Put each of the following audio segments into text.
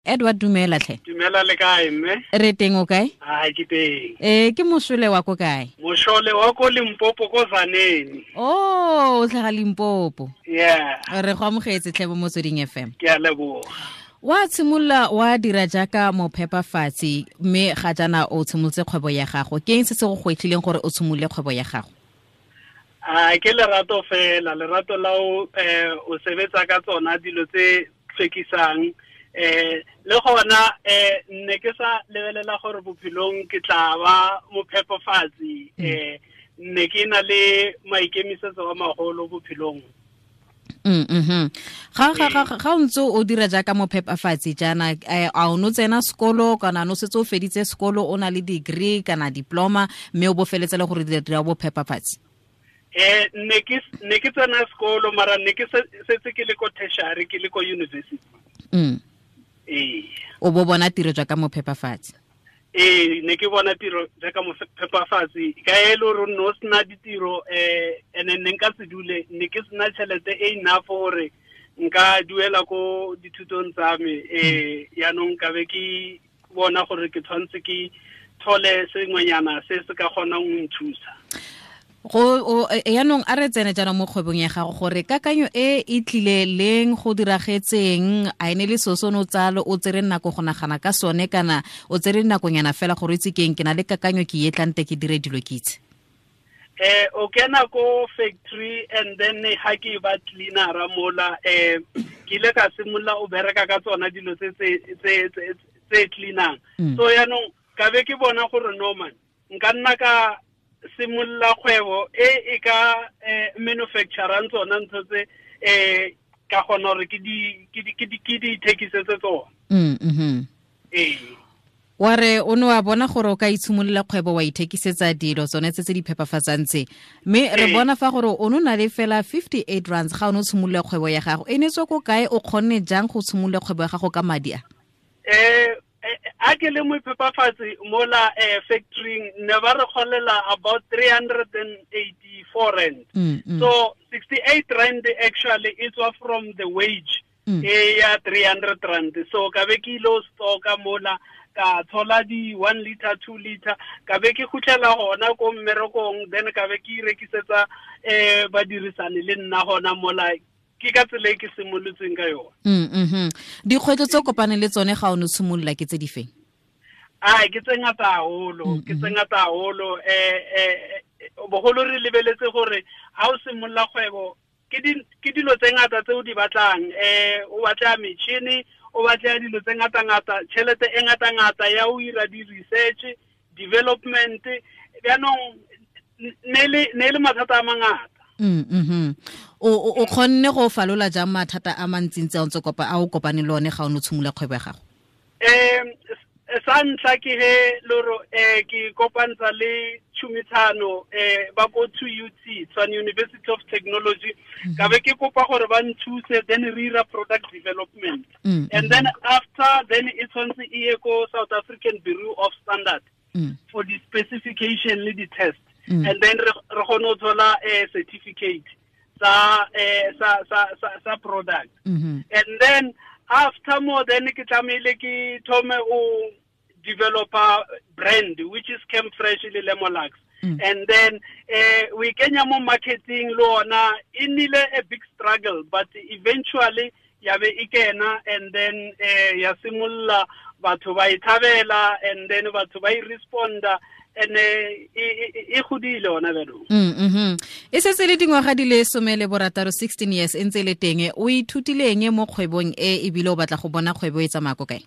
Edward, dumela tlhe. Dumela, le kae mme? Re teng, o kae? Ai, ke teng. Ke mošole wa ko kae? Mošole wa ko Limpopo, ko Zaneni. Oh, o tlhaga Limpopo. Yeah. Re go amogetse tlhe mo Motsweding FM. Ke a leboga. Wa tshimolola wa dira jaaka mophepafatsi, mme ga jaana o tshimolotse kgwebo ya gago. Ke eng se se go gwetlhileng gore o tshimolole kgwebo ya gago? A ke lerato fela, lerato la o o sebetsa ka tsona dilo tse tlhwekisang. Le gona ne ke sa lebelela gore bophelong ke tla ba mophepafatsi. Ne ke na le maikemisetso a magolo bophelong. Ga o ntse o dira jaaka mophepafatsi jaana, a o no tsena sekolo kana no setse o feditse sekolo, o na le degree kana diploma, mme o bo feletse le gore dira bophepafatsi? Ne ke tsena sekolo, mara ne ke setse ke le ko tertiary, ke le ko university. O bo bona tiro jaaka mophepafatsi? Ne ke bona tiro jaaka mophepafatsi ka e le gore no sena ditiro, ene ne nka se dule, ne ke sena tšhelete e enough gore nka duela ko dithutong tsa me. Yaanong ka be ke bona gore ke tshwanetse ke thole sengwenyana se se ka kgonang go nthusa. Go yaanong a re tsene jaanong mo kgwebong ya gago, gore kakanyo e e tlile leng, go diragetseng, a ene le seo se o ne o tsalo o tsere nako go nagana ka sone, kana o tsere nakonyana fela gore o itse keng, ke na le kakanyo ke e tlante ke dire dilo ke itse? O kena ko factory and then ha ke ba cleanera mola, ke ile ka simolola o bereka ka tsona dilo tse tse cleanang. So yaanong ka be ke bona gore no man, nka nna ka simolola kgwebo e e ka manufacturang tsona ntho tse, ka kgona gore ke di ithekisetse tsona. Wa re o ne wa bona gore o ka itshimolola kgwebo wa ithekisetsa dilo tsone tse tse di phepafatsang tse, mme re bona fa gore o ne o na le fela 58 rands ga o ne o tshimolola kgwebo ya gago. E ne tswa ko kae, o kgonne jang go tshimolola kgwebo ya gago ka madi a? A ke le moiphepafatsi mola factory, ne ba re kgolela about 384 rand. So 68 rand actually e tswa from the wage e ya 300 rand. So ka be ke ile stocka mola, ka thola di 1 liter, 2 liter, ka be ke khutlela hona ko mmerekong, then ka be ke irekisetsa badirisane le nna hona mola. Ke ka tsela e ke simolotseng ka yona. Dikgwetlho tse o kopaneng le tsone ga o ne o simolola ke tse di feng? Ai, ke tse ngata haholo, ke tse ngata haholo. Bogolo re lebeletse gore ha o simolola kgwebo, ke dilo tse ngata tse o di batlang. O batla metšhini, o batla dilo tse ngata-ngata, tšhelete e ngata-ngata ya o ira di-research, development. Jaanong ne le mathata a mangata. O kgonne go falola jang mathata a mantsintsi a o ntse kopa, a o kopane le one ga o ne o tshimolola kgwebo ya gago? Sa ntlha ke he loro, ke kopantsha le tšhomisano, ba ko 2UT, Tshwane University of Technology. Ka be ke kopa gore ba nthuse, then re ira product development. And then after, then e tshwanetse e ye ko South African Bureau of Standard for the specification le di-test. And then re kgone ho thola certificate sa product. And then after more, then ke tlamehile ke thome o developer brand, which is Chem Fresh le Lemolux. And then we kenya mo marketing le ona, e nnile a big struggle, but eventually ya be e kena, and then ya simolola batho ba e thabela, and then batho ba e responda, and e godile ona jaanong. E setse le dingwaga di le 16, 16 years e ntse le teng. O ithutile eng mo kgwebong e, ebile o batla go bona kgwebo e tsamaya ko kae?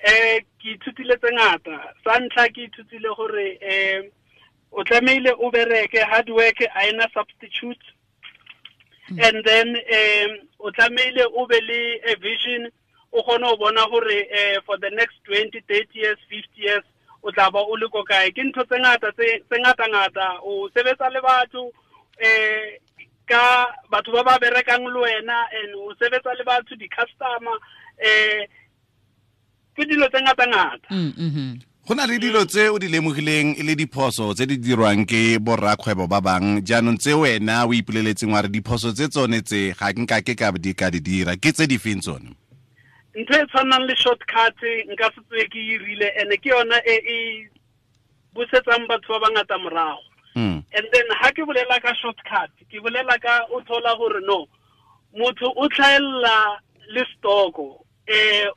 Ke ithutile tse ngata. Sa ntlha ke ithutile gore o tlamehile o bereke, hard work a ena substitute. And then o tlamehile o be le a vision, o kgone ho bona hore for the next 20, 30 years, 50 years o tla ba o le ko kae. Ke ntho tse ngata tse ngata ngata, o sebetsa le batho, ka batho ba ba berekang le wena, and o sebetsa le batho, di-customer, ke dilo tse ngata ngata. Go na le dilo tse o di lemogileng e le diphoso tse di dirwang ke borrakgwebo ba bang, jaanong tse wena o ipoleletseng wa re diphoso tse tsone tse ga nka ke ka di ka di dira, ke tse di feng tsone? Ntho e tshwanang le shortcut nka se tswe ke irile, ene ke yona e e busetsang batho ba bangata morago. And then ha ke bolela ka shortcut, ke bolela ka o thola gore no motho o tlhaella le stoko,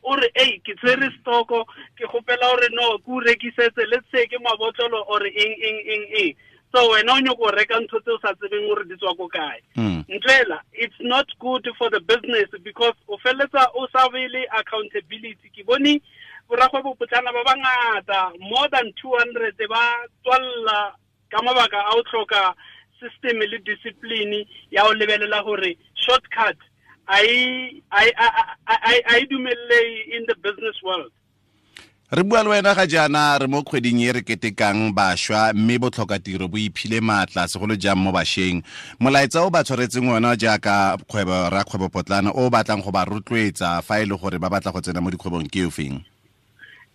o re ei ke tshwere stoko, ke gopela gore no ke o rekisetse, let's say ke mabotlolo or eng eng eng eng. So wena o nyoko reka ntho tse o sa tsebeng gore di tswa ko kae. Ntlela, it's not good for the business because o felletsa o sa be le accountability. Ke bone borakgwebo potlana ba bangata, more than 200 ba tswalla ka mabaka a o tlhoka system le discipline ya o lebelela gore shortcut a e dumelle in the business world. Re bua le wena ga jaana re mo kgweding e re ketekang bašwa, mme botlhokatiro bo iphile maatla segolo jang mo bašweng. Molaetsa o ba tshwaretseng ona jaaka kgwebo rakgwebo potlana o batlang go ba rotloetsa fa e le gore ba batla go tsena mo dikgwebong ke ofeng?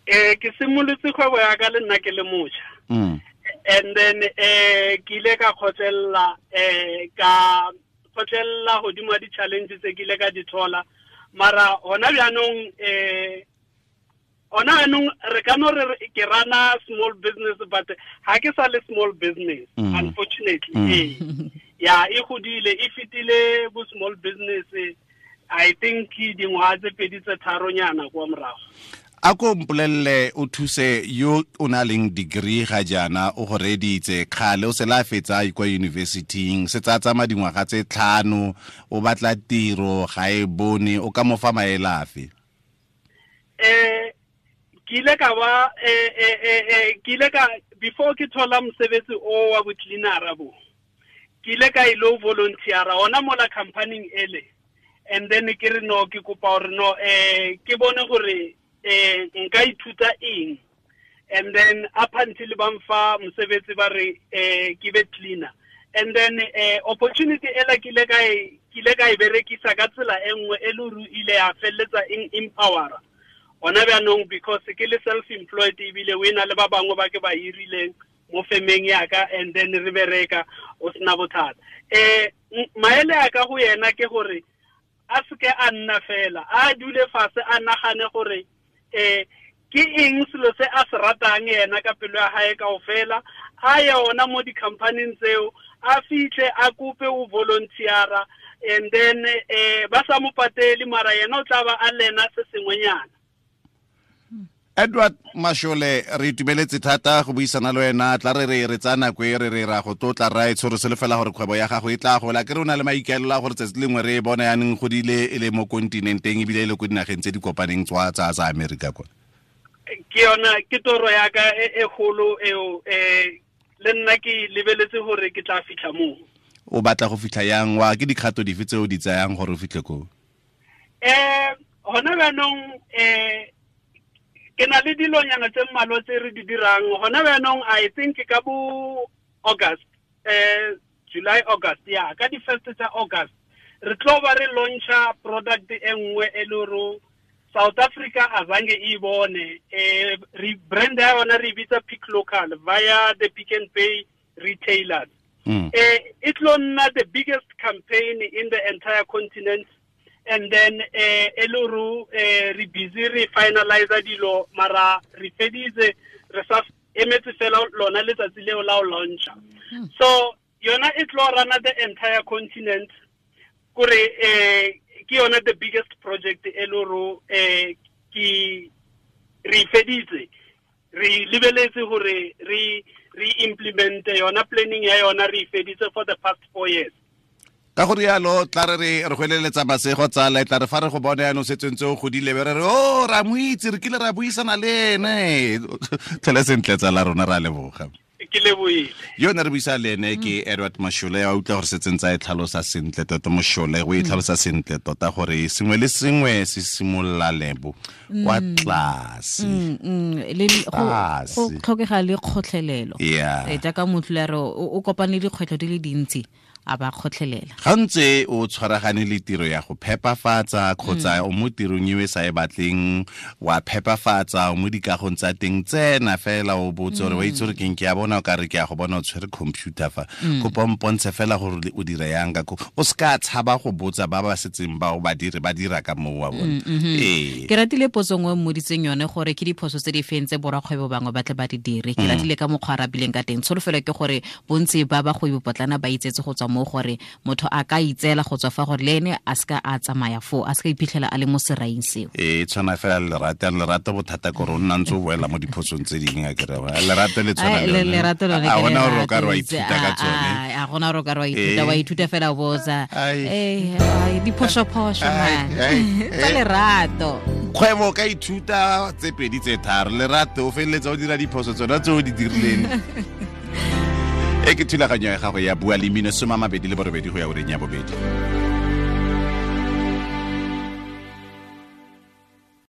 Ke simolotse kgwebo ya ka le nna ke le motjha. And then ke ile ka kgotlelela ka kgotlelela godimo ga di-challenge tse ke ile ka di thola. Mara hona bjanong ona anong re ka no re ke rana small business, but ha ke sa le small business, unfortunately. Ya e godile, e fetile bo small business, I think dingwaga tse pedi tse tharonyana kwa morago. A ko mpolelle o thuse yo o na leng degree ga jaana o go reditse kgale o se la fetsa kwa university-ing, se tsa tsamaya dingwaga tse 5 o batla tiro ga e bone, o ka mo fa maele afe? Ke ile ka ba ke ile ka before ke thola mosebetsi o wa bo-cleanera bo, ke ile ka ilo volunteera ona mola company ele, and then ke re no ke kopa hore no ke bone gore nka ithuta eng, and then up until ba mfa mosebetsi ba re ke be cleaner, and then opportunity ela ke ile ka e berekisa ka tsela e nngwe e le hore ile ya felletsa eng empowera ona bjanong, because ke le self-employed ebile o ena le ba bangwe ba ke ba hirileng mo femeng ya ka, and then re bereka o sena bothata. Maele a ka go yena ke gore a seke a nna fela, a dule fatshe a nagane gore ke eng selo se a se ratang yena ka pelo ya hae kaofela, a ye ona mo di-company-ing tseo, a fitlhe a kope o volunteera, and then ba sa mo patele, mara yena o tla ba a lena se sengwenyana. Edward Mashole, re itumeletse thata go buisana le wena. Tla re re tsaya nako e re re ra go tlotla raetsho, re solofela gore kgwebo ya gago e tla gola. Ke re o na le maikaelelo a gore tsatsi lengwe re e bona yaneng godile e le mo kontinenteng ebile e le ko dinageng tse di kopaneng tsa tsa Amerika kwa. Ke yona ke toro ya ka e kgolo eo, le nna ke lebeletse gore ke tla fitlha moo. O batla go fitlha yang? Wa ke dikgato dife tse o di tsayang gore o fitlhe koo? Hona bjanong ke na le dilonyana tse mmalwa tse re di dirang hona bjanong. I think ka bo August, July, August, ya ka di first tsa August re tlo ba re launcha product e nngwe e le hore South Africa azange e bone. Re brand ya yona re bitsa Pick Local via the Pick n Pay retailers. E tlo nna the biggest campaign in the entire continent. And then eluru re busy re finalize dilo, mara re feditse re sa emetse fela lona letsatsi leo la o launcha. So yona e tlo rana the entire continent, kore ke yona the biggest project eluru ke re feditse re lebeletse hore re implement yona planning ya yona re feditse for the past 4 years. Ka go rialo tla re re gweleletsa masego tsala, tla re fa re go bone yanong setseng tse o godile be re re o ra mo itse, re kile ra buisana le ene. Tlhole sentle tsala rona, ra leboga. Ke lebohile. Yo ne re buisa le ene ke Edward Mashole, a utlwa gore setseng tsa e tlhalosa sentle tota. Mashole o e tlhalosa sentle tota gore sengwe le sengwe se simolola lebo kwa tlase. Le go tlhokega le kgotlhelelo. Jaaka motho le re o kopane le dikgwetlho di le dintsi, A ba kgotlhelela. Ga ntse o tshwaragane le tiro ya go phepafatsa kgotsa o mo tirong e sa e batleng, wa phepafatsa o mo dikagong tsa teng, tsena fela o botse gore wa itse gore keng, ke a bona o ka re ke a go bona o tshwere computer fa, kopa mpontshe fela gore o dira yang ka ko. O se ka tshaba go botsa ba ba setseng ba o ba dire ba dira ka moo wa bona. Ee. Ke ratile potso nngwe mmoditseng yone gore ke diphoso tse di feng tse borakgwebo bangwe ba tle ba di dire. Ke ratile ka mokgwa a rabileng ka teng. Tsholofelo ke gore bontsi ba bagwebi potlana ba itsetse go tswa mo gore motho a ka itseela go tswa fa gore le ene a seka a tsamaya foo, a seka iphitlhela a le mo seraing seo. Ee, tshwana fela le lerato, lerato bothata kore o nna ntse o boela mo diphosong tse dingwe, a kere lerato le tshwana le lerato lone. A gona gore o ka re wa ithuta ka tsone. A gona gore o ka re wa ithuta, wa ithuta fela o botsa diphoso-phoso man tsa lerato. Kgwebo ka ithuta tse pedi tse tharo, lerato o feleletsa o dira diphoso tsona tse o di dirileng. E ke thulaganyo ya gago ya Bua le Mmino, 28 go ya ureng ya bobedi.